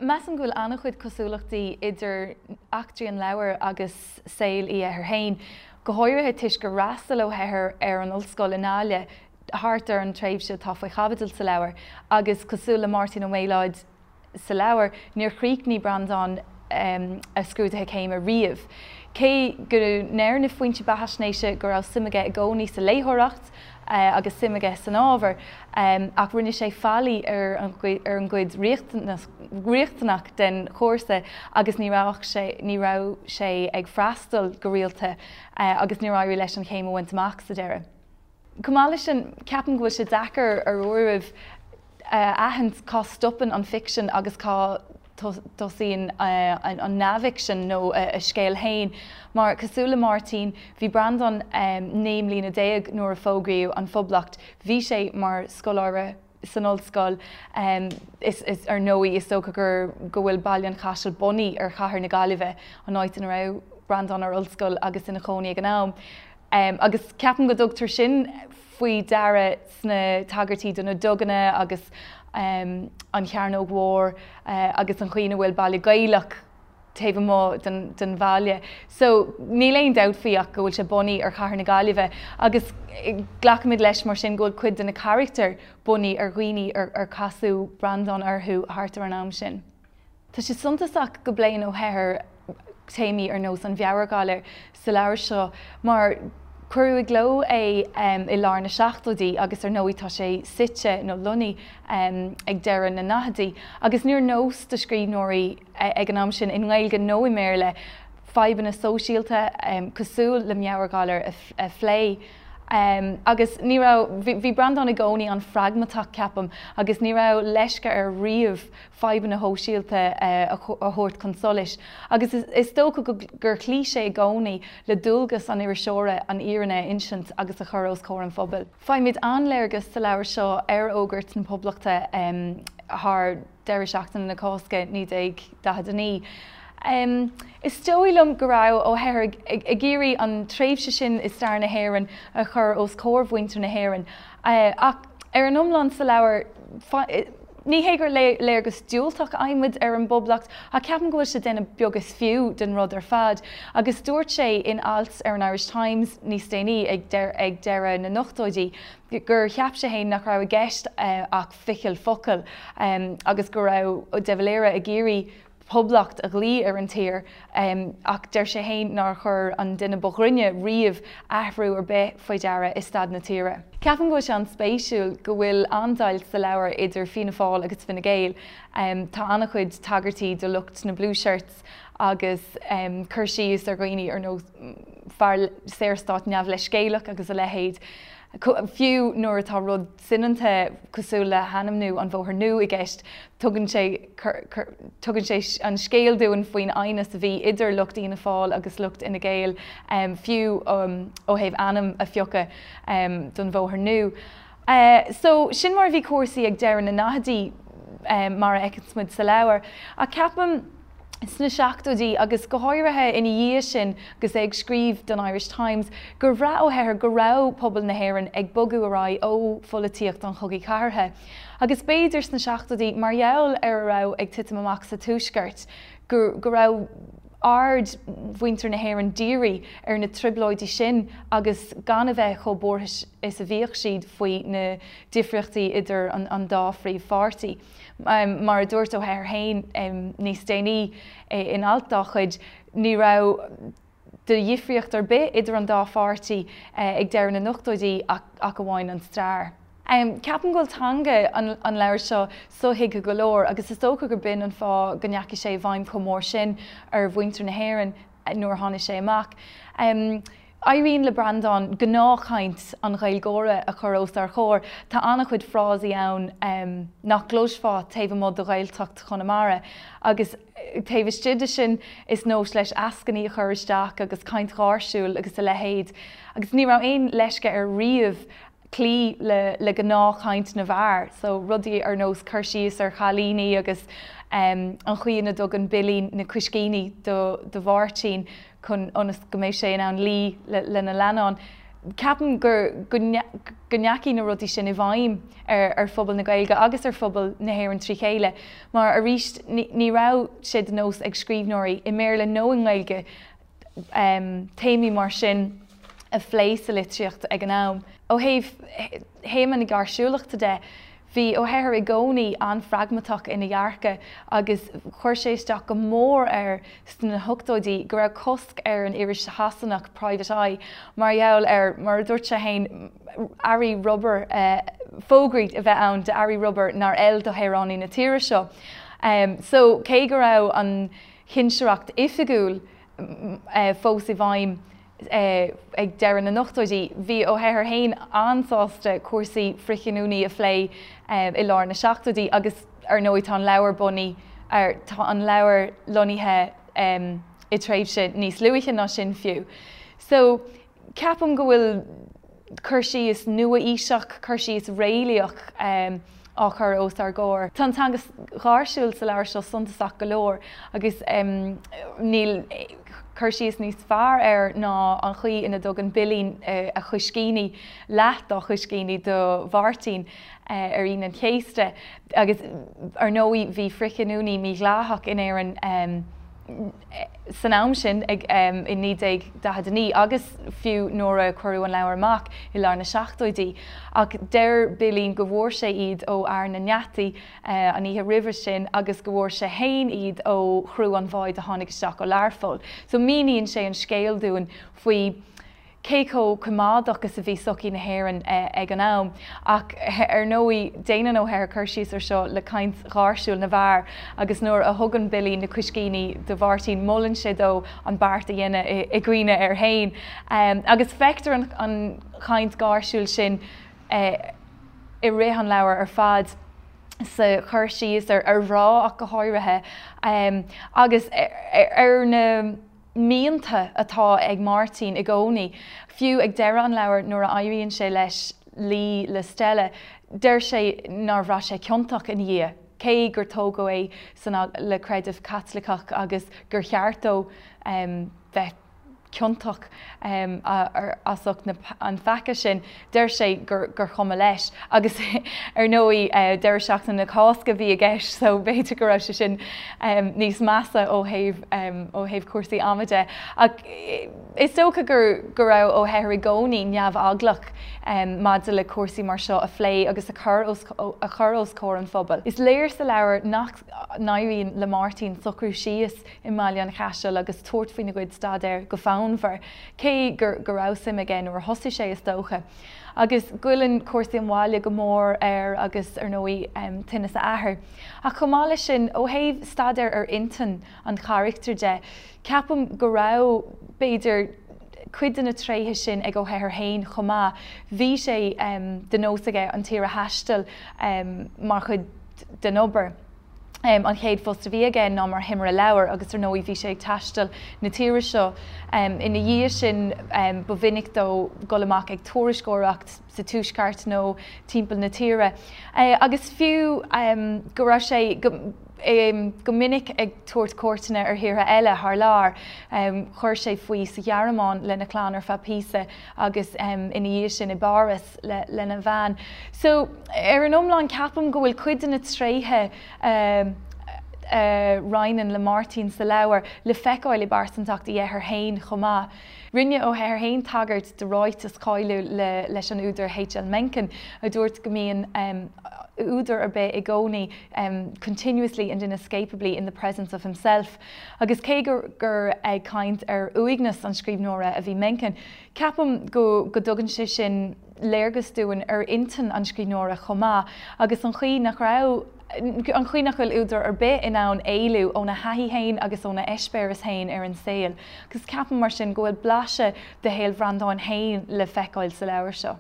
Measaim go bhfuil an-chuid cosúlachtaí idir eachtraí an leabhair agus saol Uí Eithir féin, go háirithe toisc gur fhreastail Ó hEithir ar an ollscoil i nGaillimh thart ar an tréimhse atá faoi chaibidil sa leabhar agus cosúil le Máirtín Ó Méalóid sa leabhar, níor chríochnaigh Breandán a scrúduithe céime riamh. Cé go ndeir na foinsí beathaisnéise go raibh suim aige i gcónaí sa léitheoireacht agus suim aige san ábhar, ach rinne sé faillí ar an gcuid riachtanach den chúrsa agus ní raibh sé ní raibh sé ag freastal go rialta agus níor éirigh leis an chéim a bhaint amach sa deireadh. Chomh maith leis sin, ceapaim go bhfuil sé deacair ar uairibh a aithint cá stopann an ficsean agus cá dtosaíonn an neamhfhicsean nó a scéal féin. Mar, cosúil le Máirtín, bhí Breandán 19 mbliana nuair a fógraíodh an Phoblacht. Bhí sé mar scoláire san ollscoil. Is, ar ndóigh, is dócha gur go bhfuil Baile an Chaisil bunaithe ar chathair na Gaillimhe, an áit ina raibh Breandán ar ollscoil agus ina chónaí ag an am. Agus ceapaim go dtugtar sin faoi deara sna tagairtí do na duganna agus an Chearnóg Mhór agus an chaoi ina bhfuil baile Gaelach taobh amuigh den bhaile. So níl aon dabht faoi ach go bhfuil sé bunaithe ar chathair na Gaillimhe agus glacaimid leis mar sin go bhfuil cuid de na carachtair bunaithe ar dhaoine ar casadh Breandán orthu thart ar an am sin. Tá sé suntasach go bpléann Ó hEithir téamaí ar nós an mheabhairghalair sa leabhar seo mar cuireadh i gcló é i lár na seachtóidí agus ar ndóigh tá sé suite nó lonnaithe ag deireadh na ndaichidí agus níor nós do scríbhneoirí ag an am sin, i nGaeilge nó i mBéarla, fadhbanna sóisialta cosúil le meabhairghalar a phlé. Agus ní raibh, bhí Breandán i gcónaí an-phragmatach, ceapaim, agus ní raibh leisce air riamh fadhbanna shóisialta a thabhairt chun solais agus is dócha gur chloígh sé i gcónaí le dualgas an iriseora an fhírinne a insint agus a chur os comhair an phobail. Faighimid an-léargas sa leabhar seo ar fhógairt na Poblachta thar deireadh seachtaine na Cásca 1949. Is dóigh liom go raibh Ó hEithir ag iarraidh an tréimhse sin i stair na hÉireann a chur os comhair mhuintir na hÉireann ach ar an iomlán sa leabhar, Ní hé gur léargas diúltach a fhaighimid ar an bPoblacht, ach ceapaim go bhfuil sé ag déanamh beag is fiú den rud ar fad. Agus dúirt sé in alt ar an Irish Times níos déanaí, ag deireadh na n-ochtóidí, gur cheap sé féin nach raibh i gceist ach ficheall focal agus go raibh de Valera ag iarraidh poblacht a ghlaoigh ar an tír, ach deir sé féin nár chuir an duine ba ghrinne riamh athrú ar bith faoi deara i staid na tíre. Ceapaim go bhfuil sé an-spéisiúil go bhfuil an-deighilt sa leabhar idir Fianna Fáil agus Fine Gael. Tá an-chuid tagairtí do lucht na Blue Shirts agus cur síos ar dhaoine ar nós fear Saorstáit neamhleithscéalach agus a leithéid. Fiú nuair atá rud soineanta cosúil le hainmniú an Bhóthair Nua i gceist, tugann sé tugann sé an scéal dúinn faoin aighneas a bhí idir lucht Fhianna Fáil agus lucht Fhine Gael, fiú ó thaobh ainm a phiocadh don Bhóthar Nua. So, sin mar a bhí cúrsaí ag deireadh na ndaichidí, mar a fheiceanns muid sa leabhar. Ach ceapaim. sna seachtóidí agus go háirithe ina dhiaidh sin agus é ag scríobh don Irish Times, gur bhraith Ó hEithir go raibh pobal na hÉireann ag bogadh ar aghaidh ó pholaitíocht an Chogaidh Chathartha. Agus b'fhéidir sna seachtóidí, mar gheall ar a raibh ag titim amach sa Tuaisceart, go go raibh aird mhuintir na hÉireann dírithe ar na trioblóidí sin agus gan a bheith chomh buartha is a bhíodh siad faoi na difríochtaí idir an dá phríomhpháirtí. Mar a dúirt Ó hEithir féin níos déanaí in alt dá chuid, ní raibh de dhifríocht ar bith idir an dá pháirtí ag deireadh na n-ochtóidí ach amháin an stair. Ceapaim go bhfuil teanga an leabhair seo sothuigthe go leor agus is dócha gur b'in an fáth go ndeachaigh sé i bhfeidhm chomh mór sin ar mhuintir na hÉireann nuair a tháinig sé amach. Éiríonn le Breandán gnáthchaint an Ghaeilgeora a chur os ár chomhair. Tá an-chuid frásaí ann nach gcloisfeá taobh amuigh de Ghaeltacht Chonamara agus taobh istigh de sin is nós leis eascainí a chur isteach agus caint gháirsiúil agus a leithéid. Agus ní raibh aon leisce air riamh cloí le gnáthchaint na bhfear. So rudaí ar nós cur síos ar chailíní agus an chaoi ina dtugann Billí na cuiscíní do Mháirtín chun ionas go mbeidh sé in ann luí lena leannán. Ceapaim gur go ndeachaigh na rudaí sin i bhfeidhm ar phobal na Gaeilge agus ar phobal na hÉireann trí chéile mar arís ní raibh sé de nós ag scríbhneoirí i mBéarla nó i nGaeilge téamaí mar sin a phlé sa litríocht ag an am. Ó thaobh théama na gáirsiúlachta de, bhí Ó hEithir i gcónaí an-phragmatach ina dhearcadh agus chuir sé isteach go mór air sna hochtóidí go raibh cosc ar an iris Shasanach Private Eye mar gheall ar, mar a dúirt sé féin, earraí rubair, fógraí a bheith ann d'earraí rubair nár fheil do shaoránaigh na tíre seo. So, cé go raibh an chinsireacht oifigiúil fós i bhfeidhm ag deireadh na n-ochtóidí, bhí Ó hEithir féin an-sásta cúrsaí frithghiniúnaí a phlé i lár na seachtóidí agus ar ndóigh tá an leabhar bunaithe ar, tá an leabhar lonnaithe i dtréimhse níos luaithe ná sin fiú. So, ceapaim go bhfuil cur síos nua-aoiseach, cur síos réalaíoch á chur os ár gcomhair. Tá an teanga gháirsiúil sa leabhar seo suntasach go leor agus níl cur síos níos fearr air ná an chaoi ina dtugann Billí a chuiscíní, leath dá chuiscíní do Mháirtín ar Aoine an Chéasta agus ar ndóigh bhí frithghiniúnaí mídhleathach in Éirinn san am sin, i 1949 agus fiú nuair a cuireadh an leabhar amach i lár na seachtóidí. Ach deir Billí go bhfuair sé iad ó fhear na ngeataí an oíche roimhe sin agus go bhfuair sé fhéin iad ó chriú an bháid a tháinig isteach ó Learpholl. So míníonn sé an scéal dúinn faoi cé chomh coimeádach is a bhí sochaí na hÉireann ag an am. Ach ar ndóigh, déanann Ó hEithir cur síos ar seo le caint gháirsiúil na bhfear agus nuair a thugann Billí na cuiscíní do Mháirtín molann sé dó an beart a dhéanamh i gcuimhne air féin. Agus feictear an chaint gháirsiúil sin i rith an leabhair ar fad sa chur síos ar mhná ach go háirithe agus ar na mianta atá ag Máirtín i gcónaí. Fiú ag deireadh an leabhair nuair a éiríonn sé leis luí le Stella, deir sé nár bhraith sé ciontach ina dhiaidh, cé gur tógadh é san le creideamh Caitliceach agus gur cheart dó bheith ciontach as ucht an pheaca sin. Deir sé gur chuma leis. Agus ar ndóigh deireadh seachtaine na Cásca a bhí i gceist so b'fhéidir go raibh sé sin níos measa ó thaobh ó thaobh cúrsaí ama de. Ach is dócha gur go raibh Ó hEithir i gcónaí neamheaglach maidir le cúrsaí mar seo a phlé agus a chur os a chur os comhair an phobail. Is léir sa leabhar nach n-éiríonn le Máirtín socrú síos i mBaile an Chaisil agus tabhairt faoina chuid staidéir go fonnmhar, cé gur go raibh suim aige nuair a thosaigh sé, is dócha. Agus goilleann cúrsaí an bhaile go mór air agus, ar ndóigh, tinneas a athar. Ach chomh maith leis sin, ó thaobh staidéar ar intinn an charachtair de, ceapaim go raibh, b'fhéidir, cuid de na tréithe sin ag Ó hEithir féin chomh maith. Bhí sé de nós aige an tír a thaisteal mar chuid den obair. An chéad phost a bhí aige ná mar thimire leabhar agus ar ndóigh bhí sé ag taisteal na tíre seo. Ina dhiaidh sin ba mhinic dó dul amach ag tuairisceoireacht sa tuaisceart nó timpeall na tíre. Agus fiú go raibh sé go minic ag tabhairt cuairteanna ar thíortha eile thar lear, chuir sé faoi sa Ghearmáin lena chlann ar feadh píosa agus ina dhiaidh sin i bPáras. lena bhean. So, ar an iomlán, ceapaim go bhfuil cuid de na tréithe a roinneann le Máirtín sa leabhar le feiceáil i bpearsantacht Uí Eithir féin chomh maith. Rinne Ó hEithir féin tagairt do ráiteas cáiliúil leis an údar H.L. Mencken a dúirt go mbíonn údar ar bith i gcónaí continuously and inescapably in the presence of himself. Agus cé gur ag caint ar uaigneas an scríbhneora a bhí Mencken, Ceapaim go go dtugann sé sin léargas dúinn ar intinn an scríbhneora chomh maith agus an chaoi nach raibh, an chaoi nach bhfuil údar ar bith in ann éalú óna thaithí féin agus óna eispéireas féin ar an saol. Agus ceapaim mar sin go bhfuil blaiseadh de shaol Bhreandáin féin le feiceáil sa leabhar seo.